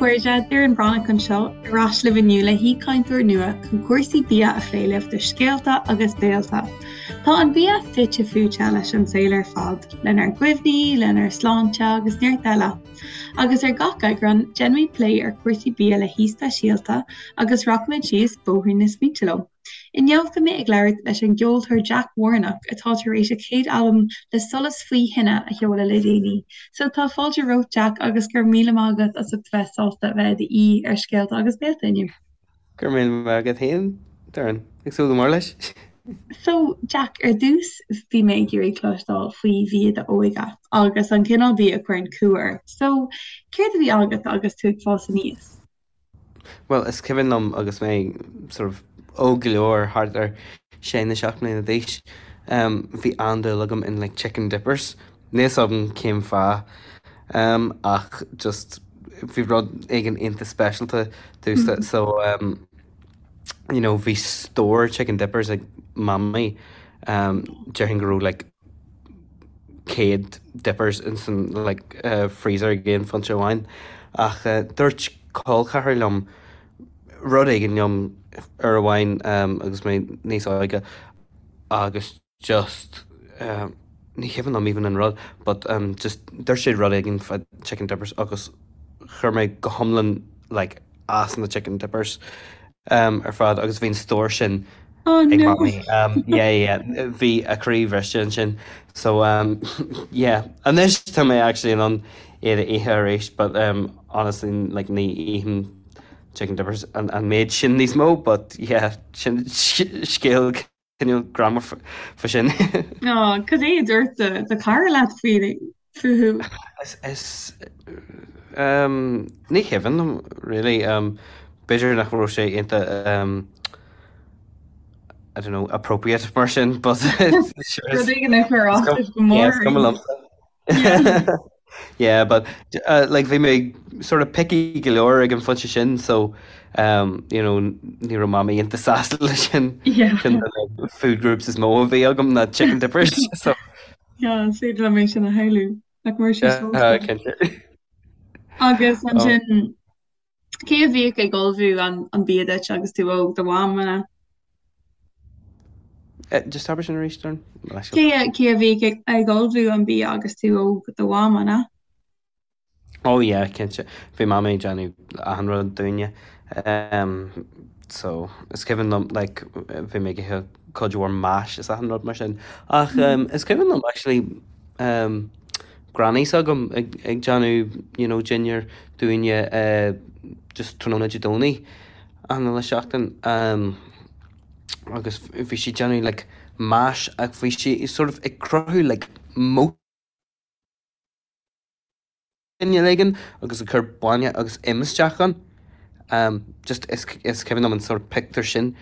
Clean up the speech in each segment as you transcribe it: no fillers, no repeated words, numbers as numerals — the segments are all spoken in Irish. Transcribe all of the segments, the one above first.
chairde, Doireann Breathnach anseo, ar ais libh inniu le haoichainteoir nua chun cúrsaí bia a phlé libh do Scéalta agus Béalta. Tá an bia fite fuaite leis an saol ar fad, lenár gcuimhní, lenár sláinte agus neart eile. Agus ar gach eagrán, déanfaimid plé ar chúrsaí bia le haoi speisialta agus rachaimid síos bóithrín na smaointe leo. Inniu beidh mé ag labhairt leis an gceoltóir Jack Warnock atá tar éis a chéad albam Le Solas Faoi Thine a sheoladh le déanaí. So tá fáilte romhat Jack agus go raibh míle maith agat as ucht bheith sásta a bheith i d'aoi ar Scéalta agus Béalta inniu. Go raibh míle maith agat féin, Doireann. Ag súil go mór leis. So Jack, ar dtús bhí mé ag iarraidh cloisteáil faoi bhia d'óige agus an cineál bia a chuireann cumha ort. So céard a bhí agat agus tú ag fás aníos? Bhuel, is cuimhin liom agus mé sort of óg go leor, thart ar sé nó 7 mbliana d'aois, bhí an-dúil agam in like chicken dippers. Níl 'fhios agam cén fáth ach just bhí rud éigin iontach speisialta domhsa so you know bhí stór chicken dippers ag Mamaí, déarfainn go raibh like 100 dippers ins an like freezer ag aon phointe amháin ach dúirt col ceathrar liom rud éigin liom uair amháin agus mé níos óige agus just ní cuimhin liom even an rud but just dúirt sé rud éigin fá chicken dippers agus chuir mé go hiomlán like as na chicken dippers ar fad agus bhí an stór sin Oh ag no. mamaí. Yeah yeah bhí a croí bhriste ansin so yeah anois tá mé actually in ann iad a ithe arís but honestly like ní ithim chicken dippers an méid sin níos mó but yeah sin scéal cineál greannmhar fá sin. Ó, cad é a dúirt do chara leat faoi fúthu? Is ní cuimhin liom really. B'fhéidir nach raibh sé iontach I don't know, appropriate mar sin but Rud éigin a chuir as duit go mór. Is cuma liomsa. Yeah, but uh, like bhí mé sort of picky go leor ag an phointe sin so um, you know, ní raibh mamaí iontach sásta leis sin Yeah. Sin na food groups is mó a bhí agam ná chicken dippers so Yeah, is féidir liom é sin a shamhlú. Nach mbeadh sé yeah, sásta. cinnte. Agus Oh. ansin Cé a bhíodh ag ullmhú an bia duit agus tú óg, do mham, an ea? Just abair sin arís, Doireann. Cé cé a bhíodh ag ullmhú an bia agus tú óg, do mham, an ea? Oh yeah, cinnte. Bhí mamaí ag déanamh achan rud dúinne. So, is cuimhin liom, like, bhí mé ag ithe cuid mhór mash is achan rud mar sin. Ach is cuimhin liom actually, granny s'agam ag déanamh you know dinnéar dúinne just tráthnóna Dé Domhnaigh achan uile seachtain agus bhí sí ag déanamh like mash ach bhí sí sort of ag cruthú like moat cineál éigin agus ag cur bainne agus im isteach ann. Just is is cuimhin liom an sort of pictiúr sin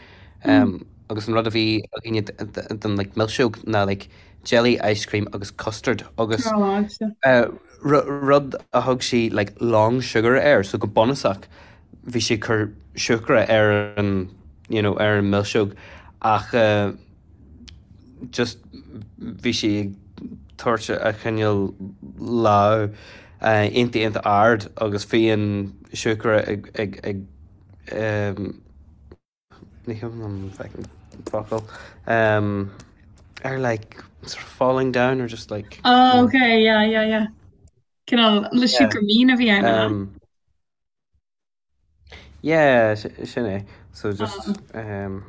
agus an rud a bhí againne den like milseog ná like jelly ice cream agus custard agus rud a thug sí like long sugar air so go bunúsach bhí sí ag cur siúcra ar an you know ar an milseog ach just bhí sí ag tabhairt a chineál lámh iontach iontach ard agus bhí an siúcra ag ag ag ní cuimhin liom an focal ar like sort of falling down or just like Oh okay yeah yeah yeah Cineál le siúcra mín a bhí ann. Yeah, sin é. So just um.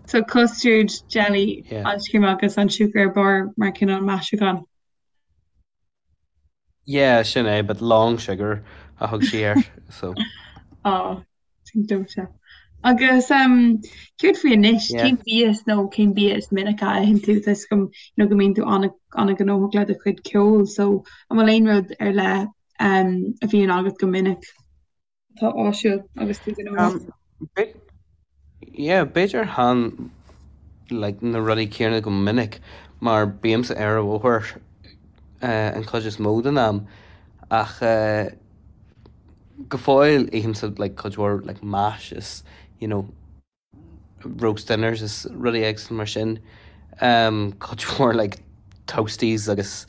So custard, jelly, Yeah. ice cream agus an siúcra ar barr mar cineál maisiúchán. Yeah, sin é, but long sugar a thug sí air, so. Á, sin dóite. Agus um, céard faoi anois? Yeah. Cén bia nó cén bia is minice a itheann tú? Tá 'fhios agam you know, go mbíonn tú an-ghnóthach le do chuid ceoil, so an bhfuil aon rud ar leith um, a bhíonn agat go minic atá áisiúil agus tú gnóthach? Um, yeah, b'fhéidir chan like, na rudaí céanna go minic mar bímse ar an bhóthar uh, an chuid is mó den am ach uh, go fóill ithimse like, cuid mhór like, mash is you know, roast dinners is rudaí éagsúla mar sin. Cuid mhór like toasties agus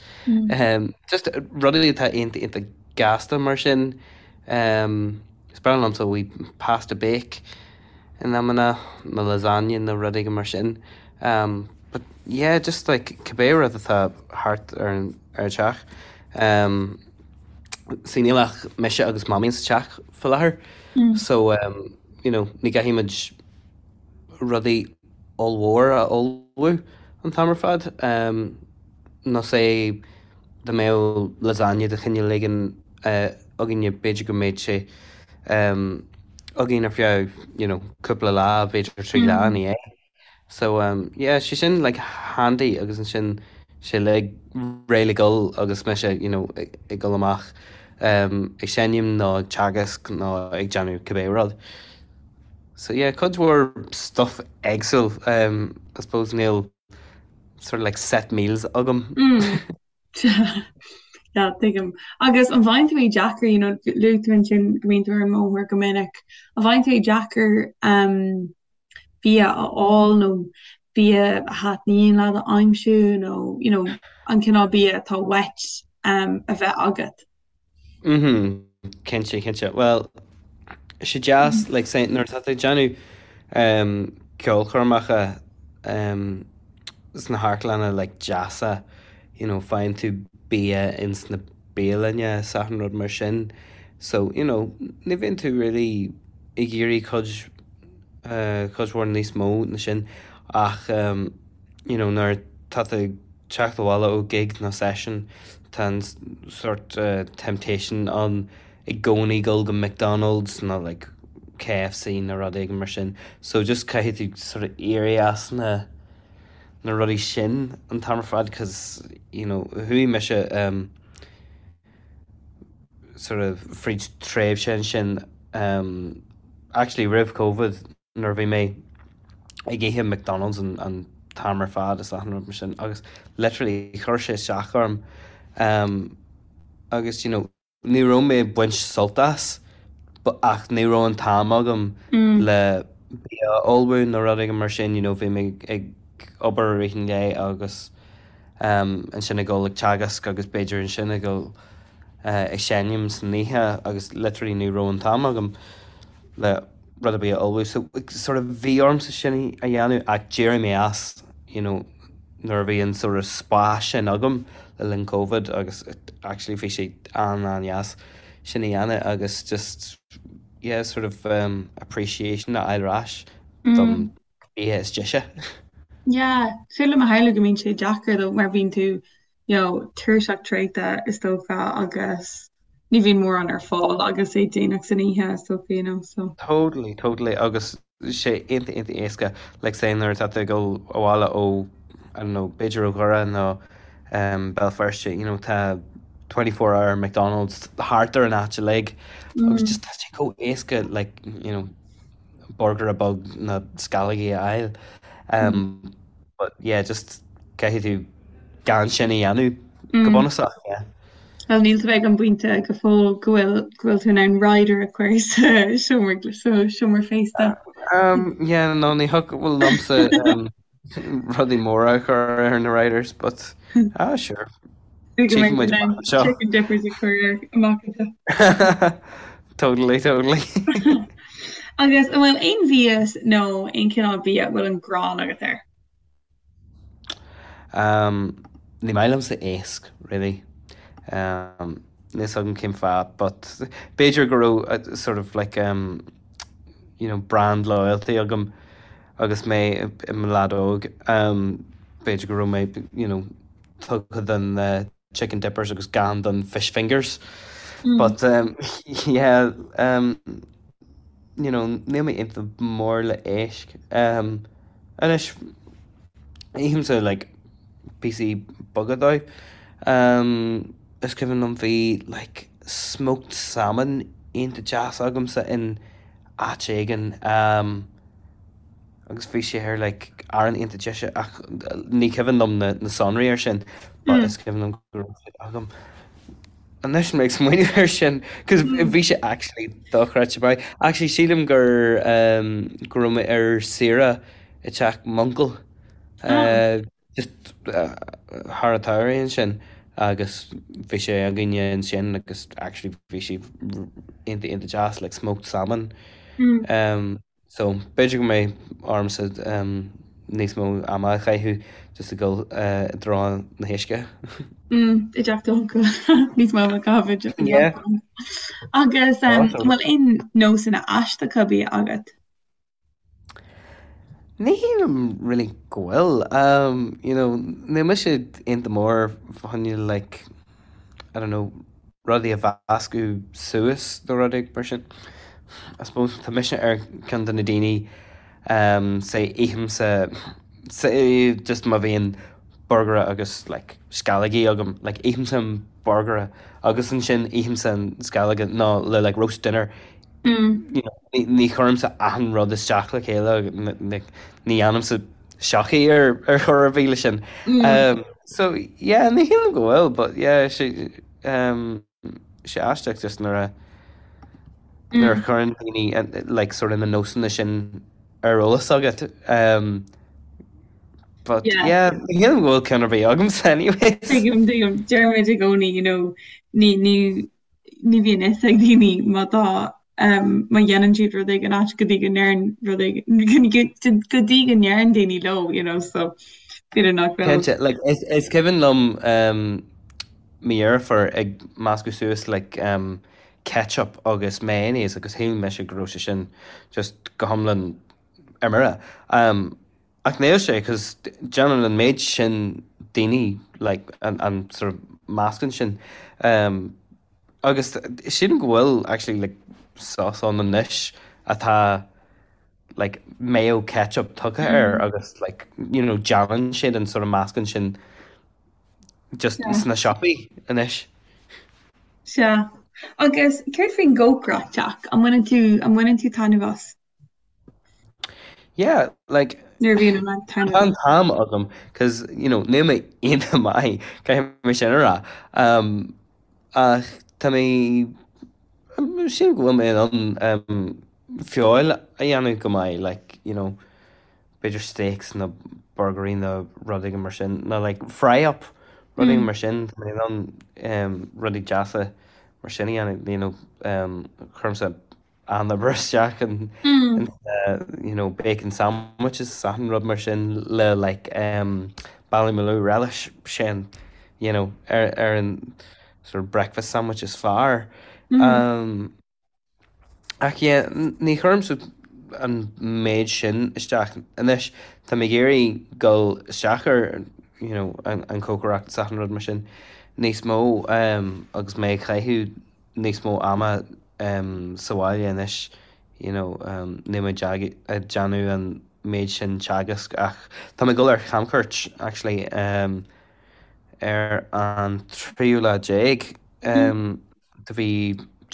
just rudaí atá iontach iontach gasta mar sin. Um, is breá liomsa wee pasta bake in amanna, nó lasagne nó rud éigin mar sin. Um, but yeah, just like cibé rud atá thart ar an ar an teach. Um, see níl ach mise agus mamaí sa teach faoi láthair. So um, you know, ní gcaithfidh muid rudaí ollmhór a ullmhú an t-am ar fad. Um, nó say dá mbeadh lasagne de chineál éigin againne b'fhéidir go mbeadh sé againn ar feadh you know cúpla lá, b'fhéidir 3 lá ina dhiaidh. So yeah sé sin like handy agus ansin sé like réidh le gol agus mise you know ag dul amach ag seinm nó ag teagasc nó ag déanamh cibé rud. So yeah cuid mhór stuff éagsúil I suppose níl sort of like set meals agam. Yeah, tuigim. Agus an bhfaigheann tú é deacair, you know, luaigh tú ansin go mbíonn tú ar an mbóthar go minic, an bhfaigheann tú é deacair um, bia a fháil nó bia a thaitníonn leat a aimsiú nó, you know, an cineál bia atá uait um, a bheith agat? Mhm, cinnte, cinnte. Bhuel, sé deas, like say, nuair atá tú ag déanamh um, ceolchoirmeacha um, sna hamharclanna like deasa, you know, faigheann tú bia ins na bialanna is achan rud mar sin. So, you know, ní bhíonn tú really ag iarraidh cuid, uh, cuid mhór níos mó na sin ach um, you know, nuair atá tú ag teacht abhaile ó gig nó session tá an sort temptation ann i gcónaí dul go McDonald's nó like KFC nó rud éigin mar sin. So just caithfidh tú sort of éirí as na na rudaí sin an t-am ar fad cause you know chuaigh mise um, sort of fríd tréimhse ansin um, actually roimh Covid nuair a bhí mé ag ithe McDonald's an an t-am ar fad is achan rud mar sin agus literally chuir sé isteach orm um, agus you know ní raibh mé ag baint sult as but ach ní raibh an t-am agam mm. le bia a ullmhú nó rud éigin mar sin you know bhí mé ag obair i rith an lae agus um, ansin ag dul ag teagasc agus b'fhéidir ansin ag dul uh, ag seinm san oíche agus literally ní raibh an t-am agam le rud ar bith a ullmhú. So sort of bhí ormsa sin a dhéanamh ach d'éirigh mé as you know nuair a bhí an sort of spás sin agam le linn Covid agus actually bhí sé an-an-dheas sin a dhéanamh agus just yeah sort of um, appreciation a fháil ar ais don bia is deise. Yeah, féidir liom a shamhlú go mbíonn sé deacair though mar bíonn tú you know, tuirseach traochta is dócha agus ní bhíonn mórán ar fáil agus é déanach san oíche is dócha, you know, so. Totally, totally agus sé iontach iontach éasca like say nuair atá tú ag dul abhaile ó I don't know, b'fhéidir ó Dhoire nó um, Béal Feirste, you know, tá 24 hour McDonald's thart ar an áit uilig agus just tá sé chomh éasca like, you know, burger beag nó sceallógaí a fháil. Um, But yeah, just caithfidh tú gan sin a dhéanamh go bunúsach, yeah. Well, níl tú ag an bpointe go fóill go bhfuil go bhfuil tú in ann rider a chur sa seomra sa seomra féasta. Um, yeah, no, ní thiocfadh liomsa um, rudaí móra a chur ar na riders, but ah, sure. Go mbeidh tú in ann chicken dippers a chur air amach anseo. Totally, totally. Agus an bhfuil aon mhias nó aon chineál bia a bhfuil an ghráin agat air? Um, ní maith liomsa éasc, really. Um, níl a fhios agam cén fáth, but b'fhéidir go raibh uh, sort of like, um, you know, brand loyalty agam agus mé i mo leaid óg. Um, b'fhéidir go raibh mé, you know, tugtha don uh, chicken dippers agus gan don fish fingers. But um, yeah, um, you know, níl mé iontach mór le éisc. Um, anois, ithimse like, píosaí beaga dó. Um, is cuimhin liom bhí like, smoked salmon iontach deas agamsa in áit éigin. Um, agus bhí sé ar like arán iontach deise ach ní cuimhin liom na na sonraí ar sin but is cuimhin liom go raibh sé agam. Anois mé ag smaoineamh air sin cos bhí sé actually dochreidte maith. Actually sílim gur um, go raibh mé ar saoire i teach m'uncail uh, just uh, thar an tsamhradh ansin. Agus bhí sé againne ansin agus actually bhí sé iontach iontach deas like smoked salmon. Um, so b'fhéidir go mbeidh ormsa um, níos mó ama a chaitheamh just ag dul uh, i dtreo na huisce. Mm, i dteach d'uncail níos mó ama a chaitheamh i dteach Yeah. d'uncail. Agus um, Awesome. an bhfuil aon nósanna aisteacha bia agat? Ní shílim really go bhfuil. You know, níl mise iontach mór fá choinne like, I don't know, rudaí a mheascadh suas nó rudaí mar sin. I suppose tá mise ar ceann de na daoine um say ithimse say just má bhíonn burgaire agus like sceallógaí agam, like ithimse an burgaire agus ansin ithimse an sceallóga nó le like roast dinner you know, ní chuirimse achan rud isteach le chéile, ní dhéanaimse sochaí ar ar chor ar bith leis sin. Um, so yeah, ní shílim go bhfuil, but yeah, sé um, sé aisteach just nuair a nuair a chuireann daoine like sort of na nósanna sin ar eolas agat. Um, but Yeah. yeah, ní shílim go bhfuil ceann ar bith agamsa anyways. Tuigim, tuigim, deirimid i gcónaí, you know, ní, ní, ní bhíonn fhios ag daoine má tá má dhéanann siad rud éigin ait go dtí go ndeireann rud éigin go dtí go ndeireann daoine leo, you know, so b'fhéidir nach bhfuil. Cinnte, like, is, is cuimhin liom um, mo dheirfiúr ag meascadh suas like, um, ketchup agus mayonnaise agus shíl mise go raibh sé sin just go hiomlán ar mire. Um, Ach níl sé, cos déanann an méid sin daoine like an an sort of meascán sin. Um, agus sílim go bhfuil actually like sauce ann anois atá like mayo ketchup tugtha air agus like you know déanann siad an sort of meascán sin just Yeah. sna siopaí anois. Sea. Agus céard faoin gcócaireacht, Jack? An mbaineann tú, an mbaineann tú taitneamh as? Yeah, like, Nuair a bhíonn an tá an t-am agam, cos, you know, níl mé iontach maith, caithfidh mé sin a rá. Um, ach tá mé, sílim go bhfuil mé in ann um, feoil a dhéanamh go maith, like, you know, b'fhéidir steaks nó burgairí nó rudaí mar sin, nó like fry up, rudaí mar sin, tá mé in ann um, rudaí deasa mar sin a dhéanamh, you know, um, cuirimse an-obair isteach in you know bacon sandwiches is achan rud mar sin le like um Ballymaloe relish sin you know ar ar an sort of breakfast sandwich is fearr. Um ach yeah ní chuirimse an méid sin isteach anois tá mé ag iarraidh dul isteach ar you know an an cócaireacht is achan rud mar sin níos mó um agus mé ag caitheamh níos mó ama sa bhaile anois you know níl mé ag déanamh an méid sin teagasc ach tá mé ag dul ar chamchuairt actually ar an tríú lá déag de mhí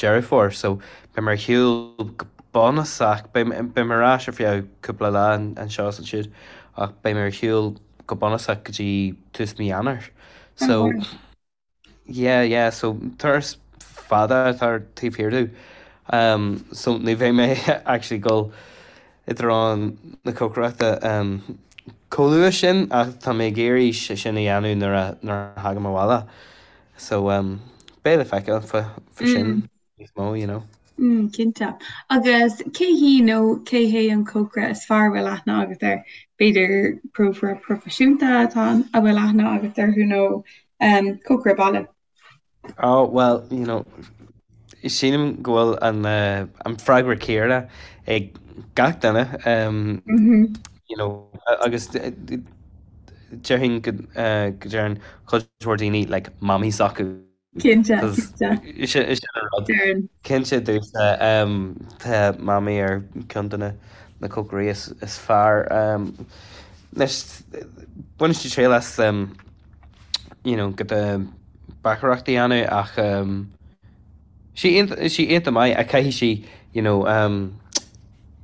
Deireadh Fómhair so beidh mé ar shiúl go bunúsach, beidh mé ar ais ar feadh cúpla lá anseo is ansiúd ach beidh mé ar shiúl go bunúsach go dtí tús mí Eanáir so Yeah, yeah, so turas fada atá ar taobh thiar domh. Um, so ní bheidh mé actually ag dul i dtreo na cócaireachta um, chomh luath sin ach tá mé ag iarraidh sé sin a dhéanamh nuair a, nuair a thagaim abhaile. So um, beidh le feiceáil fá, fá sin níos mó, you know. Mm, cinnte. Agus cé hí nó cé hé an cócaire is fearr a bhfuil aithne agat air? B'fhéidir cócaire proifisiúnta atá a bhfuil aithne agat orthu nó um, cócaire baile? Oh, well, you know, sílim go bhfuil an, uh, an freagra céanna ag gach duine, um, Mm -hmm. you know, agus déarfainn go, uh, go deireann cuid mhór daoine like, mamaí s'acu. Cinnte, cinnte. Sin an rud. Cinnte domhsa, tá Mamaí ar ceann de na cócairí is fearr. Anois, baineann sí triail as you know giota beachaireacht a dhéanamh ach sí sí iontach maith ach caithfidh sí you know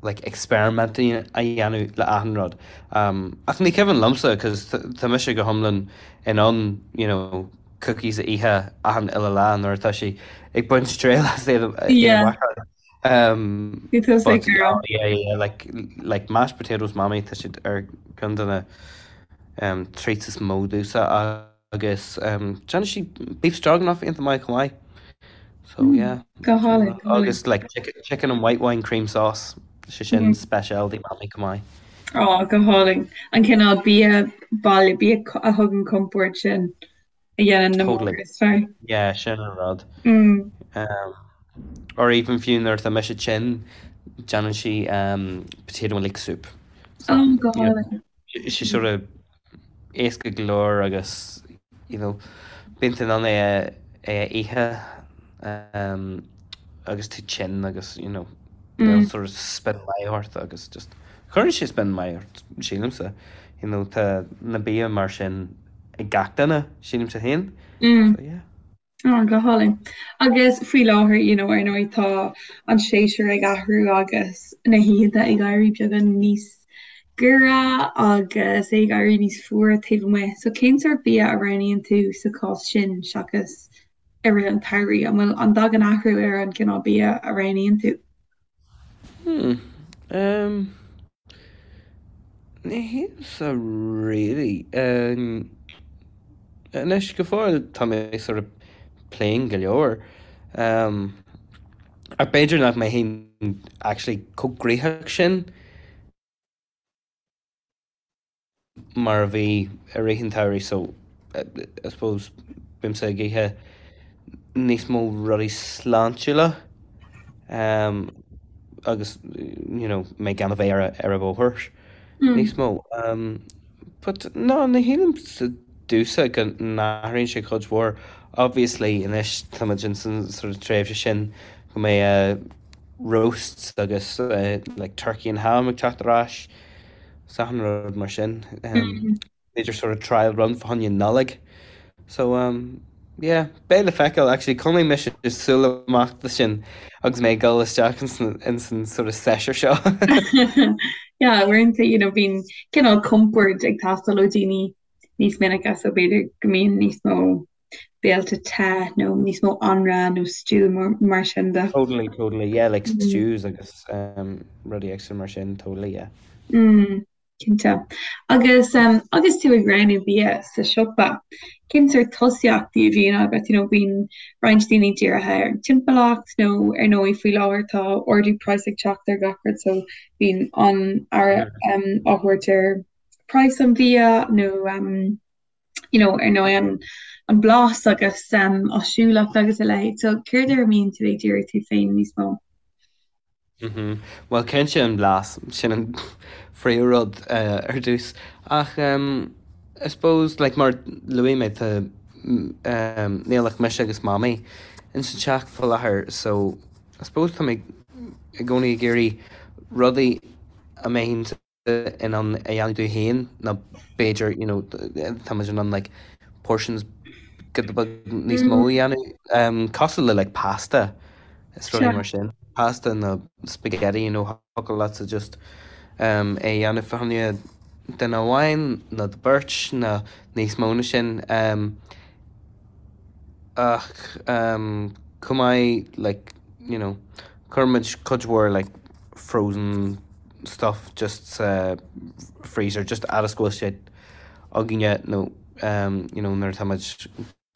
like experiment a dhéanamh le achan rud. Ach ní cuimhin liomsa cos tá mise go hiomlán in ann you know cookies a ithe achan uile lá nuair atá sí ag baint triail as iad a bhacáil. Um, Bhí tú but ag rá. yeah, yeah, like, like mashed potatoes Mamaí, tá siad ar ceann de na um, treats is mó domhsa. Agus déanann sí beef stroganoff iontach maith chomh maith. So yeah. Go hálainn, go hálainn. Agus like chicken, chicken and white wine cream sauce, sé sin specialty Mamaí chomh maith. Á, go hálainn. An cineál bia baile, bia a thugann compord sin a dhéanann na Totally. máthair is fearr. Yeah, sin an rud. Um, or even fiú nuair atá mise tinn, déanann sí um, potato and leek soup. So, Ó, go hálainn. sé sort of éasca go leor agus you know bíonn tú in ann é a é a ithe um agus tú tinn agus you know níl sort of spion maith ort agus just cuireann sé spion maith ort sílimse you know tá na bia mar sin ag gach duine sílimse féin so yeah. Á, go hálainn. Agus faoi láthair, you know, ar ndóigh tá an séasúr ag athrú agus na hoícheanta ag éirí beagán níos giorra agus é ag éirí níos fuaire taobh amuigh. So cén sórt bia a roghnaíonn tú sa chás sin seachas i rith an tsamhraidh? An bhfuil, an dtagann athrú ar an gcineál bia a roghnaíonn tú? Hmm. Um, ní shílimse really. Um, anois go fóill tá mé sort of plain go leor. Um, ach b'fhéidir nach mbeinn actually chomh gnoitheach sin. mar a bhí i rith an tsamhraidh so I suppose bímse ag ithe níos mó rudaí sláintiúla um agus you know mé gan a bheith ar ar an bhóthar níos mó. Um but no ní shílimse domhsa go n-athraíonn sé cuid mhór. Obviously anois táimid in san sort of tréimhse sin go mbeidh roasts agus like turkey and ham ag teacht ar ais. 's achan rud mar sin. B'fhéidir sort of trial run fá choinne Nollaig. So um yeah, beidh le feiceáil actually coinneoidh mise súil amach do sin agus mé ag dul isteach ins an sort of séasúr seo. Yeah, uaireanta you know bíonn cineál compord ag teastáil ó daoine níos minice so b'fhéidir go mbíonn níos mó béilte te nó níos mó anraith nó stew mar sin de. Totally, totally, yeah, like stews agus um, rudaí éagsúla mar sin, totally, yeah. Mm, cinnte. Agus um, agus tú ag roghnú bia sa siopa, cén sórt tosaíochtaí a bhíonn agat, you know, bíonn roinnt daoine dírithe ar an timpeallacht nó ar ndóigh faoi láthair tá ardú praghas ag teacht ar gach rud so bíonn an-aire um, á thabhairt ar praghas an bhia nó um, you know, ar ndóigh an, an blas agus um, áisiúlacht agus a leithéid. So céard ar a mbíonn tú ag díriú tú féin níos mó? Mm -hmm. Well cinnte an blas sin an phríomhrud uh, ar dtús. Ach um, I suppose like, mar luaigh mé tá um, níl ach mise agus mamaí in sa teach faoi láthair so I suppose tá mé i gcónaí ag iarraidh rudaí a mbeinn in ann a dhéanamh domh féin nó b'fhéidir you know tá muid in ann like portions giota beag níos mó a dhéanamh um, cosúil le like pasta is rudaí mar sin pasta nó spaghetti you know thiocfadh leatsa just um, é a dhéanamh fá choinne duine amháin nó do beirt nó níos mó ná sin um, ach um, chomh maith like you know cuirimid cuid mhór like frozen stuff just sa freezer just fhad is go bhfuil sé againne nó um you know nuair atá muid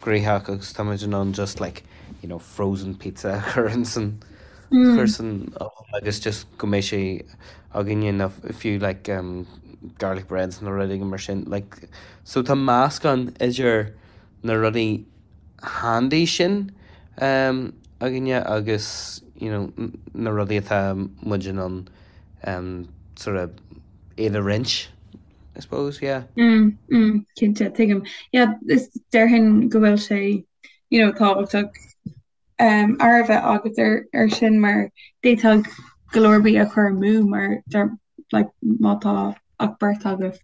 gnoitheach agus tá muid in ann just like you know frozen pizza a chur in san chur san oven agus just go mbeidh sé againne nó fiú like um garlic breads nó rudaí mar sin like so tá meascán idir na rudaí handy sin um againne agus you know na rudaí atá muid in ann um sort of iad a roinnt I suppose yeah. Mm, mm, cinnte, tuigim. Yeah, is déarfainn go bhfuil sé you know, tábhachtach um, aire a bheith agat ar, ar sin mar d'fhéadfadh go leor bia a chur amú mar der, like, má tá ach beirt agaibh.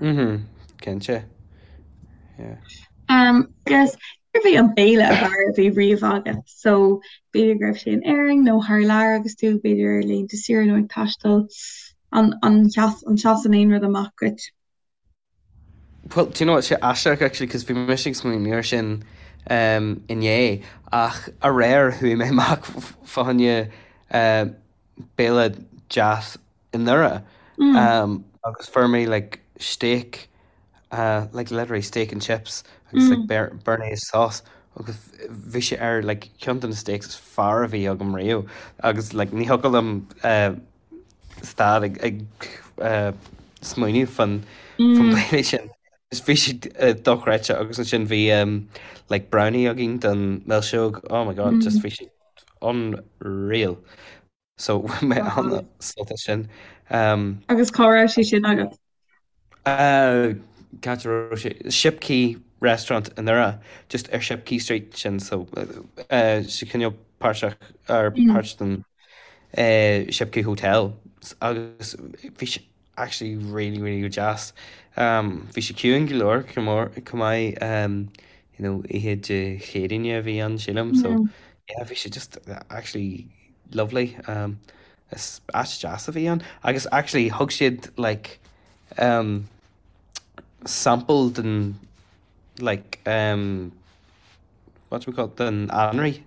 Mhm, cinnte. Yeah. Um, agus cérbh é an béile ab fhearr a bhí riamh agat? So, b'fhéidir go raibh sé in Éirinn nó thar lear agus tú b'fhéidir ar laethanta saoire nó ag taisteal. An, an, an seasann aon rud amach duit? Well, do you know what, sé aisteach actually, cos bhí mise ag smaoineamh air sin um, inné, ach aréir chuaigh mé amach fá choinne uh, béile deas i nDoire. Um, agus fuair mé like steak. Like literally steak and chips agus like béarnaise sauce agus bhí sé ar like ceann de na steaks is fearr a bhí agam riamh agus like ní thiocfadh liom stad ag ag smaoineamh fan fan béile sin. Just bhí sé dochreidte agus ansin bhí like brownie againn don milseog oh my god just bhí sé unreal. So bhain mé an-sult as sin. Agus cá raibh sé sin agat? Cá háit a raibh sé? Shipquay Restaurant i nDoire, just ar Shipquay Street sin so sé cineál páirteach ar páirt den Shipquay Hotel agus bhí sé actually really really go deas. Bhí sé ciúin go leor chomh maith you know oíche Dé Céadaoine a bhí ann sílim so yeah bhí sé just actually lovely. Is áit deas a bhí ann agus actually thug siad like sample den like what do we call it den anraith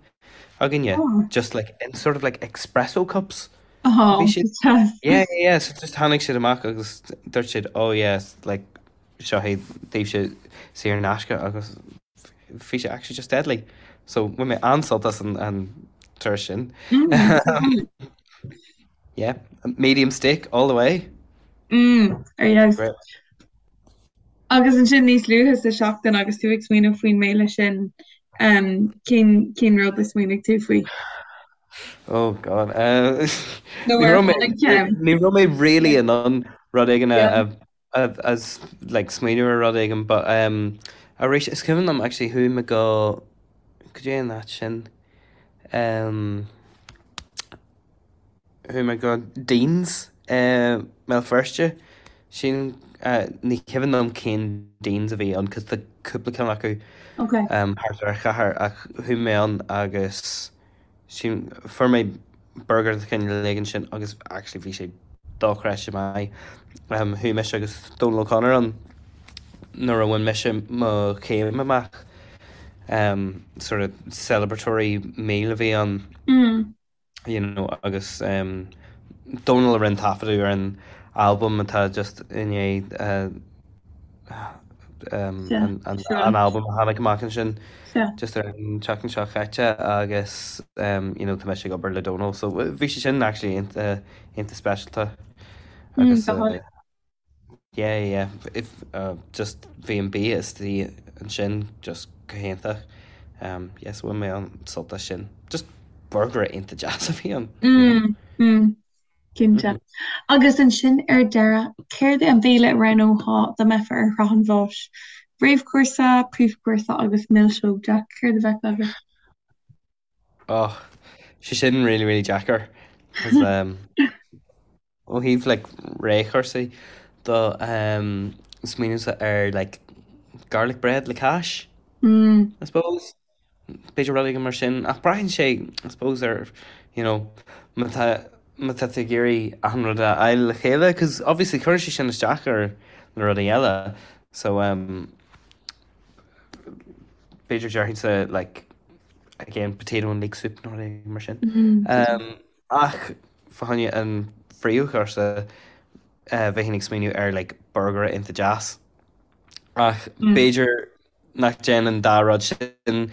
againne just like in sort of like espresso cups. Oh, Bhí siad yeah yeah yeah so just tháinig siad amach agus dúirt siad oh yes like seo é daoibhse saor in aisce agus bhí sé actually just deadly. So bhain mé an-sult as an an turas sin. Mm. Yeah, medium steak all the way. Mm, ar dheis. Great. Agus ansin níos luaithe sa seachtain agus tú ag smaoineamh faoin mbéile sin, um, cén cén rud a smaoinigh tú faoi? Oh God. Uh, Nó ní ar raibh mé tháinig ceann? ní raibh mé really in ann rud éigin a Yeah. a a like smaoineamh ar rud éigin but um arís is cuimhin liom actually chuaigh mé go go dtí an áit sin um chuaigh mé go Dean's i mBéal Feirste sin ní cuimhin liom cén Dean's a bhí ann cos tá cúpla ceann acu Okay. um thart ar an chathair ach chuaigh mé ann agus Sin, fuair mé burger de chineál éigin sin agus actually bhí sé dochreidte maith. Chuaigh mise agus Dónal O'Connor ann nuair a bhain mise mo chéim amach. Sort of celebratory meal a bhí ann, you know, agus Dónal a rinne taifeadadh ar an albam atá just i ndiaidh an albam a tháinig amach ansin just ar an tseachtain seo chaite agus you know tá mise ag obair le Dónal so bhí sé sin actually iontach iontach speisialta agus yeah yeah if just bhí an bia istigh ansin just go hiontach yeah so bhain mé an-sult as sin just burger iontach deas a bhí ann you know. Cinnte. Agus ansin ar deireadh, céard é an béile a roghnófá dá mbeifeá ar shraith an bháis? Réamhchúrsa, príomhchúrsa agus milseog, Jack, céard a bheadh agat? Oh, sé sin really, really deacair. 'Cause um, ó thaobh like réamhchúrsaí do um, smaoinímse ar like garlic bread le cáis, Mm. I suppose. B'fhéidir rud éigin mar sin, ach braitheann sé, I suppose, ar, you know, má tá, má tá tú ag iarraidh achan rud a fháil le chéile, 'cause obviously cuireann sé sin isteach ar na rudaí eile, so um, b'fhéidir déarfainnse like, again, potato and leek soup nó rud éigin mar sin. Um, ach fá choinne an phríomhchúrsa, uh, bheinn ag smaoineamh ar like burger iontach deas. Ach b'fhéidir nach dtéann an dá rud sin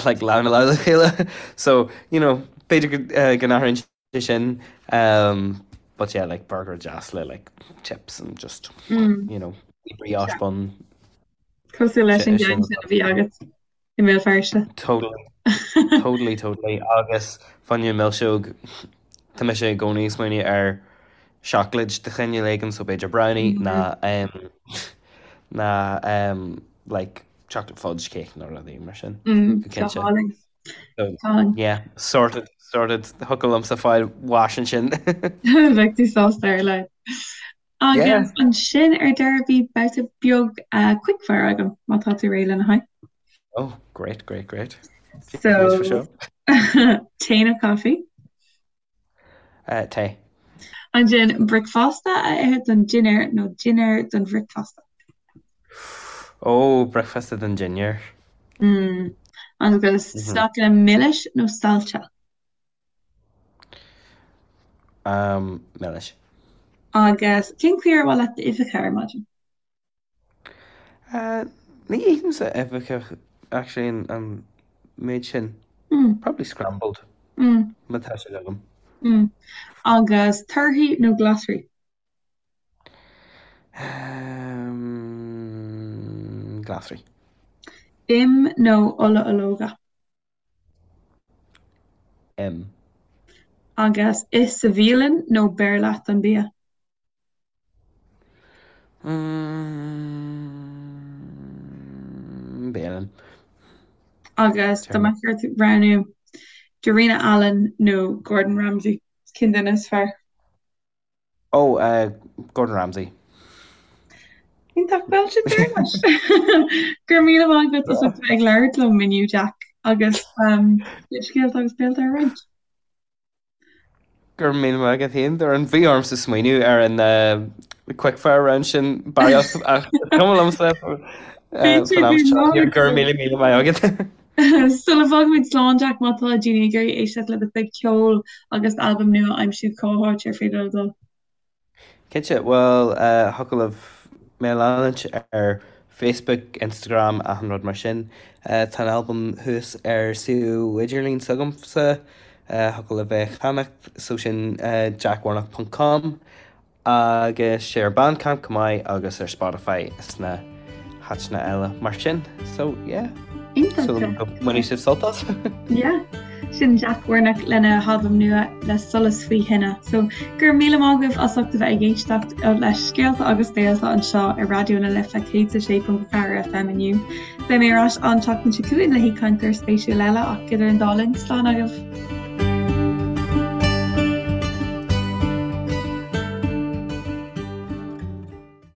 like lámh i lámh le chéile so you know b'fhéidir go uh, go n-athraíonn sé sin um, but yeah like burger deas le like chips and just Mm. you know brioche bun Cosúil leis an sin gceann sin a bhí agat i mBéal Feirste. totally totally totally agus fá choinne milseog tá mise i gcónaí ag smaoineamh ar seacláid de chineál éigin so b'fhéidir brownie ná um, ná um, like chocolate fudge cake nó rudaí mar sin Mm, go go cinnte. hálainn. So, Go hálainn. yeah, sorted, sorted. Thiocfadh liomsa fáil bháis ansin. Bheadh tú sásta ar a laghad. Yeah. Agus ansin ar deireadh bhí babhta beag uh, quickfire agam má tá tú réidh lena haghaidh. Oh, great, great, great. Cén So, seo? tae nó caife? Uh, tae. Ansin bricfeasta a ithe don dinnéar nó dinnéar don bhricfeasta? Ó, bricfeasta don dinnéar. Mm. Agus Mhm. sneaiceanna milis nó saillte? Um, milis. Agus cén chaoi ar mhaith leat d'uibheacha ar maidin? Ní ithimse uibheacha actually an méid sin. Probably scrambled má tá siad agam. Agus torthaí nó glasraí? Glasraí. Im nó ola ológa? Im. Agus ith sa bhialann nó beir leat an bia? Bialann. Agus dá mbeadh ort roghnú Darina Allen nó Gordon Ramsay, cén duine is fearr? Ó, Gordon Ramsay. Iontach, bhuel sin deireadh leis. Go raibh míle maith agat as ucht a bheith ag labhairt liom inniu, Jack, agus scéalta agus béalta a roinnt. Go raibh míle maith agat féin, Doireann. Bhí ormsa smaoineamh ar an quickfire round sin barraíocht ach is cuma liomsa faoin am seo. Go raibh míle míle maith agat. Sula bhfágaimid slán, Jack, má tá daoine ag iarraidh éisteacht le do chuid ceoil agus d'albam nua a aimsiú, cá háit ar féidir leo dul? Cinnte, bhuel, thiocfadh libh mé a leanúint ar Facebook, Instagram, achan rud mar sin. Tá an albam thuas ar suíomh idirlín s'agamsa, thiocfadh libh é a cheannacht, so sin jackwarnock ponc com. Agus sé ar Bandcamp chomh maith agus ar Spotify is na háiteanna eile mar sin. So yeah. Iontach. Súil agam go mbainfidh sibh sult as. Yeah. Sin Jack Warnock lena halbam nua le Solas Faoi Thine. So go raibh míle maith agaibh as ucht a bheith ag éisteacht le Scéalta agus Béalta anseo ar Raidió na Life 106.4 FM inniu. Beidh mé ar ais an tseachtain seo chugainn le haoichainteoir spéisiúil eile ach idir an dá linn, slán agaibh.